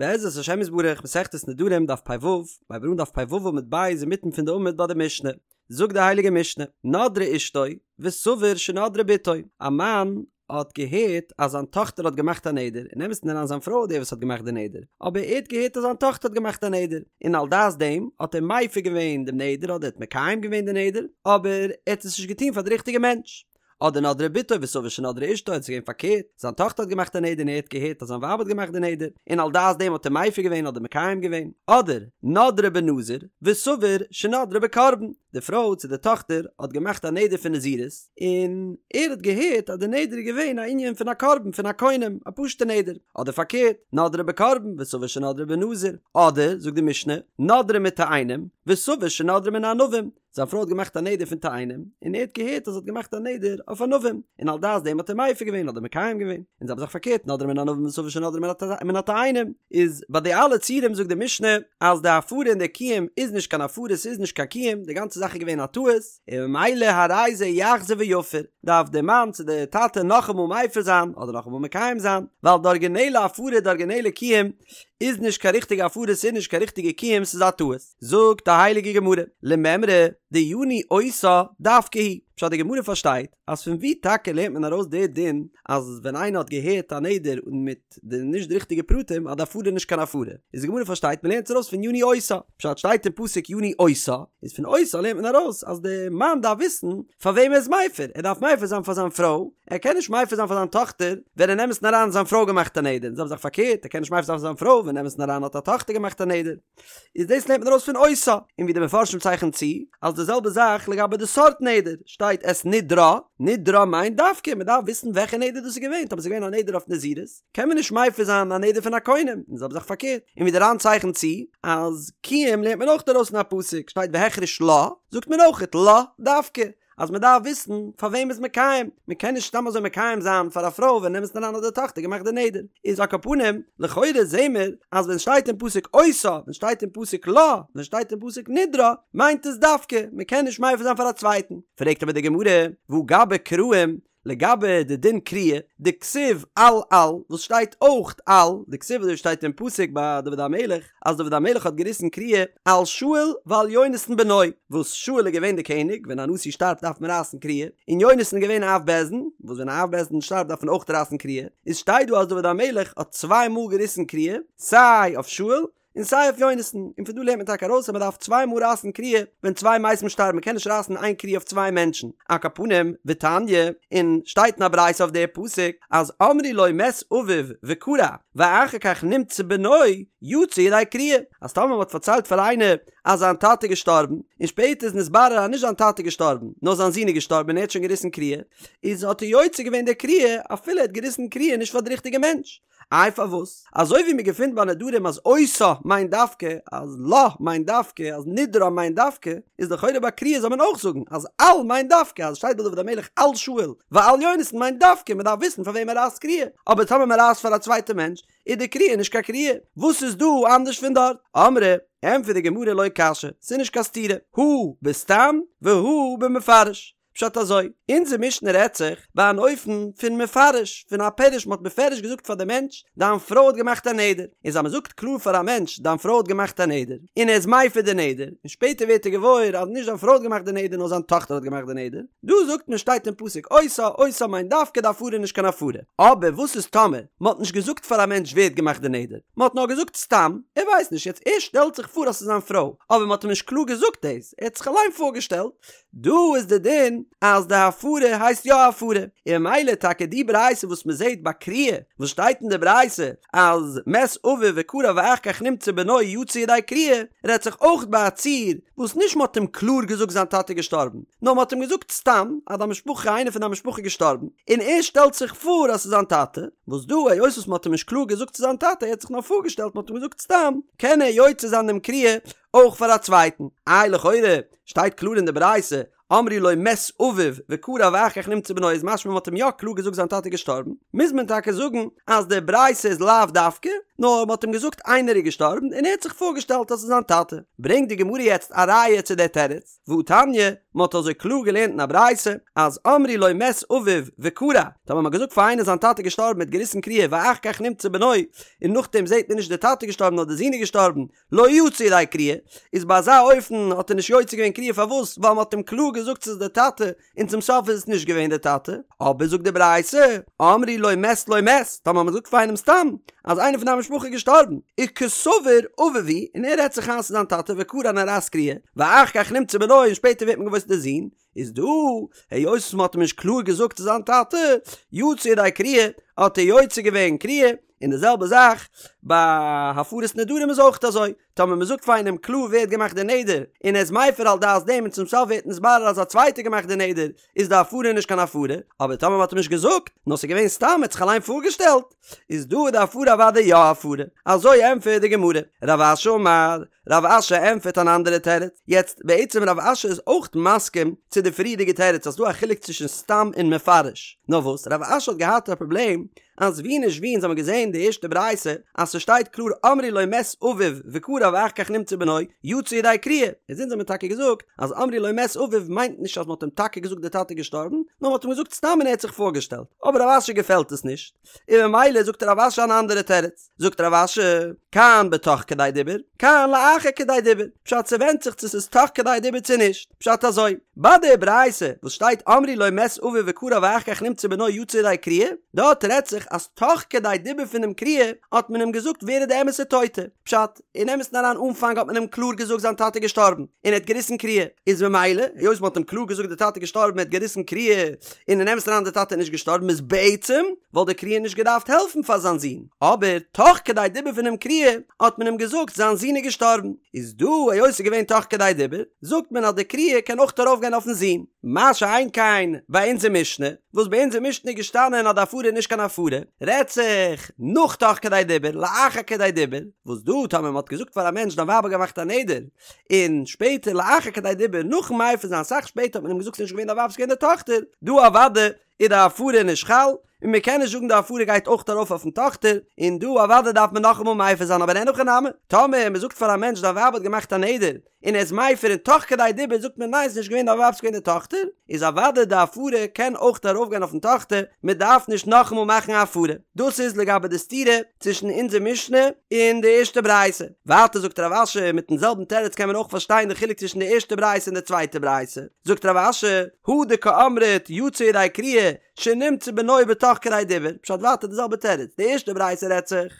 בעזרת השם יתברך, מסכת נדרים, דף פ"ו, מ'הייבט אן דף פ"ו עמוד ב' אינמיטן פון די עמוד ביי די משנה, זאגט די הייליגע משנה, נדרה אשתו, וסבור שנדרה בתו, א מאן האט געהערט אז זיין טאכטער האט געמאכט א נדר, אין אמת'ן אריין זיין פרוי איז די וואס האט געמאכט די נדר, אבער ער האט געהערט אז זיין טאכטער האט געמאכט א נדר, און על דעת דעם האט ער מפר געווען דעם נדר אדער האט מקיים געווען די נדר, אבער ער האט עס נישט געטון פאר די ריכטיגע מענטש. אדער נדרה בתו וסבור שנדרה אשתו, עס איז געווען פארקערט, זיין טאכטער האט געמאכט א נדר און ער האט געהערט אז זיין ווייב האט געמאכט די נדר, און על דעת דעם האט ער מפר געווען אדער מקיים געווען, אדער נדרה בנזיר וסבור שנדרה בקרבן, די פרוי צו די טאכטער האט געמאכט א נדר פון נזירות, און ער האט געהערט אז די נדר איז געווען א ענין פון א קרבן פון א קונם, א פשוטע נדר, אדער פארקערט, נדרה בקרבן וסבור שנדרה בנזיר, אדער, זאגט די משנה, נדרה מתאנים וסבור שנדרה מן הענבים, זיין פרוי האט געמאכט א נדר פון תאנים, און ער האט געהערט אז זי האט געמאכט א נדר אויף ענבים, און על דעת דעם האט ער מפר געווען אדער מקיים געווען, און זעלבע זאך פארקערט נדרה מן הענבים וסבור שנדרה מן התאנים, איז ביי די אלע ציורים זאגט די משנה אז די הפרה און די קיום איז נישט קיין הפרה ס'איז נישט קיין קיום, די גאנצע זאך איז געווען א טעות, און ממילא הרי זה יחזור ויפר, דארף די מאן צו די טאטע נאכאמאל מפר זיין אדער נאכאמאל מקיים זיין, ווייל די ארגינעלע הפרה די ארגינעלע קיום איז נישט קיין ריכטיגע הפרה ס'איז נישט קיין ריכטיגע קיום ס'איז א טעות. זאגט די הייליגע גמרא, למימרא דיניא אותה דווקא הוא, פשט די גמרא פארשטייט אז פון ווי טאקע לערנט מען ארויס די דין אז ווען איינער האט געהערט א נדר און מיט די נישט די ריכטיגע פרטים אז די הפרה איז נישט קיין הפרה, איז די גמרא פארשטייט מען לערנט עס ארויס פון יניא אותה, פשט שטייט אין פסוק יניא אותה, איז פון אותה לערנט מען ארויס אז די מאן דארף וויסן פאר וועם ער איז מפר, ער דארף מפר זיין פאר זיין פרוי, ער קען נישט מפר זיין פאר זיין טאכטער ווען אין אמת'ן אריין האט זיין פרוי געמאכט א נדר, און זעלבע זאך פארקערט ער קען נישט מפר זיין פאר זיין פרוי ווען אין אמת'ן אריין האט א טאכטער געמאכט א נדר. איז דאס לערנט מען ארויס פון אותה, און ווי די מפרשים צייכענען צו, אז די זעלבע זאך לגבי די סארט נדר, שטייט את נדרה, נדרה מיינט דווקא, מען דארף וויסן וועלכע נדר דאס איז געווען, טאמער ס'איז געווען א נדר אויף נזירות, קען מען נישט מפר זיין א נדר פון א קונם, און די זעלבע זאך פארקערט, און ווי די ר"ן צייכנט צו, אז קיום לערנט מען אויך ארויס פון א פסוק, שטייט והחריש לה, זאגט מען אויכעט לה דווקא, אז מען דארף וויסן פאר וועם מ'איז מקיים, מען קען נישט סתם אזוי מקיים זיין פאר א פרוי ווען אין אמת'ן אריין האט די טאכטער געמאכט די נדר, איז על כל פנים, לכאורה זעהן מיר אז ווען שטייט אין פסוק אותה, ווען שטייט אין פסוק לה, ווען שטייט אין פסוק נדרה, מיינט עס דווקא, מען קען נישט מפר זיין פאר א צווייטן. פרעגט אבער די גמרא, והא גבי קרעים, לגבי די דין קריעה, דכתיב על על, וואס שטייט אויך על, דכתיב אזוי שטייט אין פסוק ביי דוד המלך, אז דוד המלך האט געריסן קריעה על שאול ועל יונתן בנו, וואס שאול איז געווען די קעניג, ווען א נשיא שטארבט דארף מען רייסן קריעה, און יונתן איז געווען אב בית דין, וואס ווען א אב בית דין שטארבט דארף מען אויך רייסן קריעה, איז שטייט דא אז דוד המלך האט צוויי מאל געריסן קריעה, סיי אויף שאול, און סיי אויף יונתן, און פון דא לערנט מען טאקע ארויס אז מען דארף צוויי מאל רייסן קריעה ווען צוויי מתים שטארבן, מען קען נישט רייסן איין קריעה אויף צוויי מענטשן, על כל פנים, ותניא, און שטייט אין א ברייתא אויף די פסוק, אז אמרו לו מת אביו וקרע, ואחר כך נמצא בנו, יצא ידי קריעה, אז טאמער מען האט פארציילט פאר איינער אז זיין טאטע איז געשטארבן, און שפעטער איז נתברר אז נישט זיין טאטע איז געשטארבן, נאר זיין זון איז געשטארבן און ער האט שוין געריסן קריעה, איז האט ער יוצא געווען די קריעה אפילו ער האט געריסן קריעה נישט פאר די ריכטיגע מענטש. איי פארוואס? אזוי ווי מען געפינט ביי נדרים אז אותה מיינט דווקא, אז לה מיינט דווקא, אז נדרה מיינט דווקא, איז לכאורה ביי קריעה זאל מען אויך זאגן אז על מיינט דווקא, אז עס שטייט ביי דוד המלך על שאול ועל יונתן מיינט דווקא, מען דארף וויסן פאר וועם מען רייסט קריעה, אבער טאמער מען רייסט פאר א צווייטע מענטש איז די קריעה נישט קיין קריעה, וואס איז דא אנדערש פון דארט? אמרי, ענטפערט די גמרא לא קשיא, ס'איז נישט קיין סתירה, הא בסתם והא במפרש. פשט אזוי, אונזער משנה רעדט זיך ביי אן אופן פון מפרש, פון א פירוש, מ'האט בפירוש געזאגט פאר די מענטש, דיין פרוי האט געמאכט א נדר, איז אז מ'זאגט קלאר פאר א מענטש, דיין פרוי האט געמאכט א נדר, און ער איז מפר די נדר, און שפעטער ווערט ער געוואויר אז נישט זיין פרוי האט געמאכט די נדר נאר זיין טאכטער האט געמאכט די נדר, דא זאגט מען שטייט אין פסוק אותה, אותה מיינט דווקא די הפרה איז נישט קיין הפרה. אבער וואס איז טאמער מ'האט נישט געזאגט פאר א מענטש ווער האט געמאכט די נדר, מ'האט נאר געזאגט סתם, ער ווייסט נישט, יעצט ער שטעלט זיך פאר אז ס'איז זיין פרוי, אבער מ'האט אים נישט קלאר געזאגט דאס, ער האט זיך אליין פארגעשטעלט, דא איז די דין אז די הפרה הייסט יא הפרה, און ממילא טאקע די ברייתא וואס מען זעט ביי קריעה, וואס שטייט אין די ברייתא אז מת אביו וקרע ואחר כך נמצא בנו יצא ידי קריעה, רעדט זיך אויך ביי א ציור וואס נישט מען האט אים קלאר געזאגט זיין טאטע איז געשטארבן, נאר מען האט אים געזאגט סתם אז די משפחה איינער פון די משפחה איז געשטארבן, און ער שטעלט זיך פאר אז ס'איז זיין טאטע, וואס דא היות וואס מען האט אים נישט קלאר געזאגט ס'איז זיין טאטע ער האט זיך נאר פארגעשטעלט מען האט אים געזאגט סתם, קען ער יוצא זיין דעם קריעה אויך פאר א צווייטן. איי לכאורה שטייט קלאר אין די ברייתא, אמרו לו מת אביו וקרע ואחר כך נמצא בנו איז משמע מ'האט אים יא קלאר געזאגט זיין טאטע איז געשטארבן, מוז מען טאקע זאגן אז די ברייתא איז לאו דווקא, נאר מ'האט אים געזאגט איינער איז געשטארבן און ער האט זיך פארגעשטעלט אז ס'איז זיין טאטע. ברענגט די גמרא יעצט א ראיה צו דער תירוץ, והתניא, מ'האט אזוי קלאר געלערנט אין א ברייתא, אז אמרו לו מת אביו וקרע, טאמער מ'האט געזאגט פאר איינער זיין טאטע איז געשטארבן מ'האט געריסן קריעה ואחר כך נמצא בנו, און נאכדעם זעט מען נישט דער טאטע איז געשטארבן נאר דער זון איז געשטארבן, לא יצא ידי קריעה, איז ביי אזא אופן האט ער נישט יוצא געווען קריעה פארוואס? ווייל מ'האט אים קלאר געזאגט ס'איז דער טאטע, און צום סוף איז עס נישט געווען דער טאטע, אבער זאגט די ברייתא, אמרו לו מת לא מת, טאמער מ'זאגט פאר איינעם סתם אז איינער פון דיין משפחה איז געשטארבן, וקסבר אביו הוא, און ער רעדט זיך איין ס'איז זיין טאטע וקרע און ער רייסט קריעה, ואחר כך נמצא בנו און שפעטער ווערט מען געוואויר ס'איז דער זון, איז דא, היות וואס מ'האט אים נישט קלאר געזאגט ס'איז זיין טאטע, יצא ידי קריעה, האט ער יוצא געווען קריעה, און די זעלבע זאך ביי הפרת נדרים איז אויך אזוי, טאמער מ'זאגט פאר איינעם קלאר ווער האט געמאכט די נדר, און ער איז מפר על דעת דעם און צום סוף ווערט נתברר אז א צווייטער האט געמאכט די נדר, איז די הפרה נישט קיין הפרה, אבער טאמער מ'האט אים נישט געזאגט, נאר ס'איז געווען סתם ער האט זיך אליין פארגעשטעלט, איז דא איז די הפרה אוודאי יא הפרה. אזוי ענטפערט די גמרא. רב אשי אמר, רב אשי ענטפערט אן אנדערע תירוץ. יעצט, בעצם רב אשי איז אויך מסכים צו די פריערדיגע תירוץ אז ס'דא א חילוק צווישן סתם און מפרש. נאר וואס, רב אשי האט געהאט א פראבלעם אז ווי נישט ווי אונז האבן געזען די ערשטע ברייתא אז ס'שטייט קלאר אמרו לו מת אביו וקרע ואחר כך נמצא בנו יצא ידי קריעה, איז אונז האבן טאקע געזאגט אז אמרו לו מת אביו מיינט נישט אז מ'האט אים טאקע געזאגט די טאטע איז געשטארבן, נאר מ'האט אים געזאגט סתם און ער האט זיך פארגעשטעלט. אבער רב אשי געפעלט עס נישט, און ממילא זאגט רב אשי אן אנדערע תירוץ. זאגט רב אשי, כאן בתוך כדי דיבור, כאן לאחר כדי דיבור, פשט ס'ווענדט זיך צו ס'איז תוך כדי דיבור צו נישט, פשט אזוי, ביי די ברייתא וואס שטייט אמרו לו מת אביו וקרע ואחר כך נמצא בנו יצא ידי קריעה, דארט רעדט זיך אז תוך כדי דיבור פונעם קריעה האט מען אים געזאגט ווער איז די אמת'ע טויטע, פשט, אין אמת'ן אריין אנפאנג האט מען אים קלאר געזאגט זיין טאטע איז געשטארבן און ער האט געריסן קריעה, איז ממילא היות מען האט אים קלאר געזאגט די טאטע איז געשטארבן ער האט געריסן קריעה און אין אמת'ן אריין די טאטע איז נישט געשטארבן איז בעצם וואלט די קריעה נישט געדארפט העלפן פאר זיין זון, אבער תוך כדי דיבור פונעם קריעה האט מען אים געזאגט זיין זון איז געשטארבן, איז דא היות ס'איז געווען תוך כדי דיבור זאגט מען אז די קריעה קען אויך ארויפגיין אויפן זון. מה שאין כן ביי אונזער משנה, וואס ביי אונזער משנה איז געשטאנען אז די הפרה איז נישט קיין הפרה, רעדט זיך נאך תוך כדי דיבור, לאחר כדי דיבור, וואס דא טאמער מען האט געזאגט פאר א מענטש דיין ווייב האט געמאכט א נדר, און שפעטער לאחר כדי דיבור נאכן מפר זיין אסאך שפעטער האט מען אים געזאגט ס'איז נישט געווען דיין ווייב ס'איז געווען די טאכטער, דא אוודאי איז די הפרה נישט חל, און מען קען נישט זאגן די הפרה גייט אויך ארויף אויפן טאכטער, און דא אוודאי דארף מען נאכאמאל מפר זיין אבער אין הכי נמי, טאמער מען זאגט פאר א מענטש דיין ווייב האט געמאכט א נדר, און ער איז מפר און תוך כדי דיבור זאגט מען ניין ס'נישט געווען דיין ווייב ס'געווען די טאכטער, איז אוודאי די הפרה קען אויך ארויפגיין אויפן טאכטער, מען דארף נישט נאכאמאל מאכן א הפרה. דאס איז לגבי די סתירה צווישן אונזער משנה און די ערשטע ברייתא. ווייטער זאגט רב אשי, מיטן זעלבן תירוץ קען מען אויך פארשטיין די חילוק צווישן די ערשטע ברייתא און די צווייטע ברייתא. זאגט רב אשי, הא דקאמרת יצא ידי קריעה שנמצא בנו בתוך כדי דיבור, פשט ווייטער די זעלבע תירוץ, די ערשטע ברייתא רעדט זיך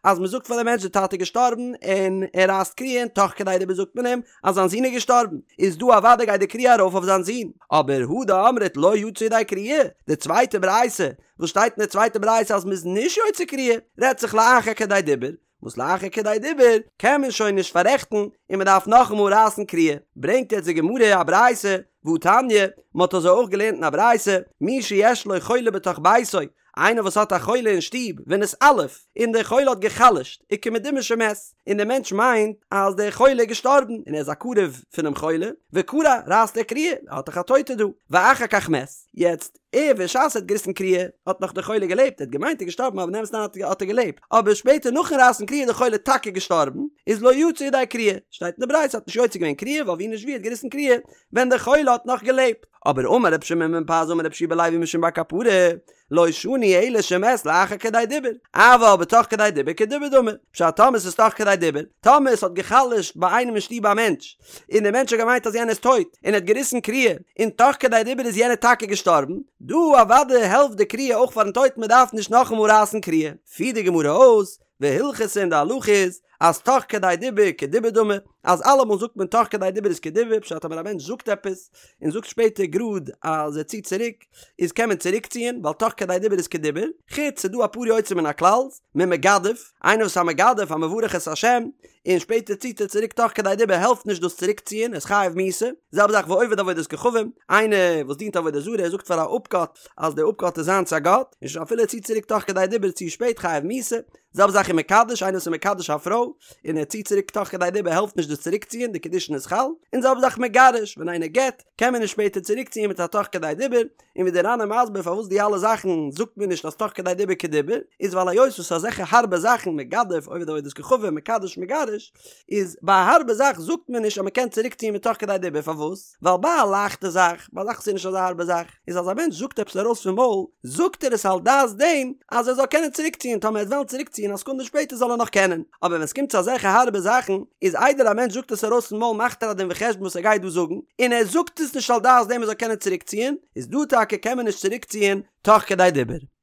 אז מען זאגט פאר די מענטש די טאטע איז געשטארבן און ער רייסט קריעה און תוך כדי דיבור זאגט מען אים אז זיין זון איז געשטארבן, איז דא אוודאי גייט די קריעה ארויף אויף זיין זון, אבער הא דאמרת לא יצא ידי קריעה, די צווייטע ברייתא וואס שטייט אין די צווייטע ברייתא אז מען איז נישט יוצא קריעה, רעדט זיך לאחר כדי דיבור, וואס לאחר כדי דיבור קען מען שוין נישט פאררעכטן און מען דארף נאכאמאל רייסן קריעה, ברענגט יעצט די גמרא א ברייתא, והתניא, מען האט אזוי אויך געלערנט אין א ברייתא, מי שיש לו חולה בתוך ביתו, איינער וואס האט א חולה אין שטוב, ונתעלף, און דער חולה האט גע'חלש'ט, וכמדומה שמת, און דער מענטש מיינט אז דער חולה איז געשטארבן, און ער איז א קרוב פונעם חולה, וקרע, רייסט ער קריעה, ער האט דאך א טויטע דא, ואחר כך מת, יעצט, ער בשעת ער האט געריסן קריעה האט נאך דער חולה געלעבט, ער האט געמיינט ער איז געשטארבן אבער אין אמת'ן האט ער געלעבט, אבער שפעטער נאכן רייסן קריעה איז דער חולה טאקע געשטארבן, איז לא יצא ידי קריעה, שטייט אין די ברייתא האט נישט יוצא געווען קריעה ווייל ווי נישט ווי ער האט געריסן קריעה ווען דער חולה האט נאך געלעבט, אבער אמר רבי שמעון בן פזי אמר רבי יהושע בן לוי משום בר קפרא, לא שנו אלא שמת לאחר כדי דיבור, אבל בתוך כדי דיבור כדיבור דמי, פשט טאמער ס'איז תוך כדי דיבור, טאמער ס'האט גע'חלש'ט ביי איינעם אין שטוב א מענטש, און דער מענטש האט געמיינט אז יענער איז טויט, און ער האט געריסן קריעה, און תוך כדי דיבור איז יענער טאקע געשטארבן, דא אוודאי העלפט די קריעה אויך פארן טויטן מען דארף נישט נאכאמאל רייסן קריעה. פירט די גמרא אויס, והלכתא און די הלכה איז, אז תוך כדי דיבור כדיבור דמי, אז אלעמאל זאגט מען תוך כדי דיבור איז כדיבור, פשט טאמער א מענטש זאגט עפעס, און זאגט שפעטער גראד אז ער ציט צוריק, איז קען מען צוריקציען, ווייל תוך כדי דיבור איז כדיבור, חוץ ס'דא אפאר יוצאים מן הכלל, ממגדף, איינער וואס איז א מגדף, א מברך את השם, און שפעטער ציט ער צוריק תוך כדי דיבור העלפט נישט דאס צוריקציען, ער איז חייב מיתה. זעלבע זאך ועובד עבודת כוכבים, איינער וואס דינט עבודה זרה ער זאגט פאר א אפגאט אז דער אפגאט איז זיינס א גאט, און שוין אפילו ער ציט צוריק תוך כדי דיבור צו שפעט חייב מיתה. זעלבע זאך ומקדש, איינער וואס איז מקדש א פרוי, און ער ציט צוריק תוך כדי דיבור העלפט נישט דאס צוריקציען, די קידושין איז חל. און זעלבע זאך מגרש, ווען איינער גט, קען מען נישט שפעטער צוריקציען מיט א תוך כדי דיבור, און ווי דער ר"ן איז מסביר פארוואס די אלע זאכן זאגט מען נישט אז תוך כדי דיבור כדיבור, איז ווייל היות וואס אזעלכע הארבע זאכן מגדף עובד עבודת כוכבים מקדש מגרש, איז ביי א הארבע זאך זאגט מען נישט אז מען קען צוריק ציען מיט תוך כדי דיבור פארוואס? ווייל ביי א לייכטע זאך, ביי א זאך וואס איז נישט אזא הארבע זאך, איז אז א מענטש זאגט עפעס ארויס פון מויל, זאגט ער עס על דעת דעם אז ער זאל קענען צוריק ציען טאמער ער וועט וועלן צוריק ציען א סעקונדע שפעטער זאל ער נאך קענען, אבער ווען עס קומט צו אזעלכע הארבע זאכן, איז איידער א מענטש זאגט עס ארויס פון מויל מאכט ער א דין וחשבון וואס ער גייט דא זאגן, און ער זאגט עס נישט על דעת דעם ער זאל קענען צוריק ציען, איז דא טאקע קען מען נישט צוריק ציען תוך כדי דיבור.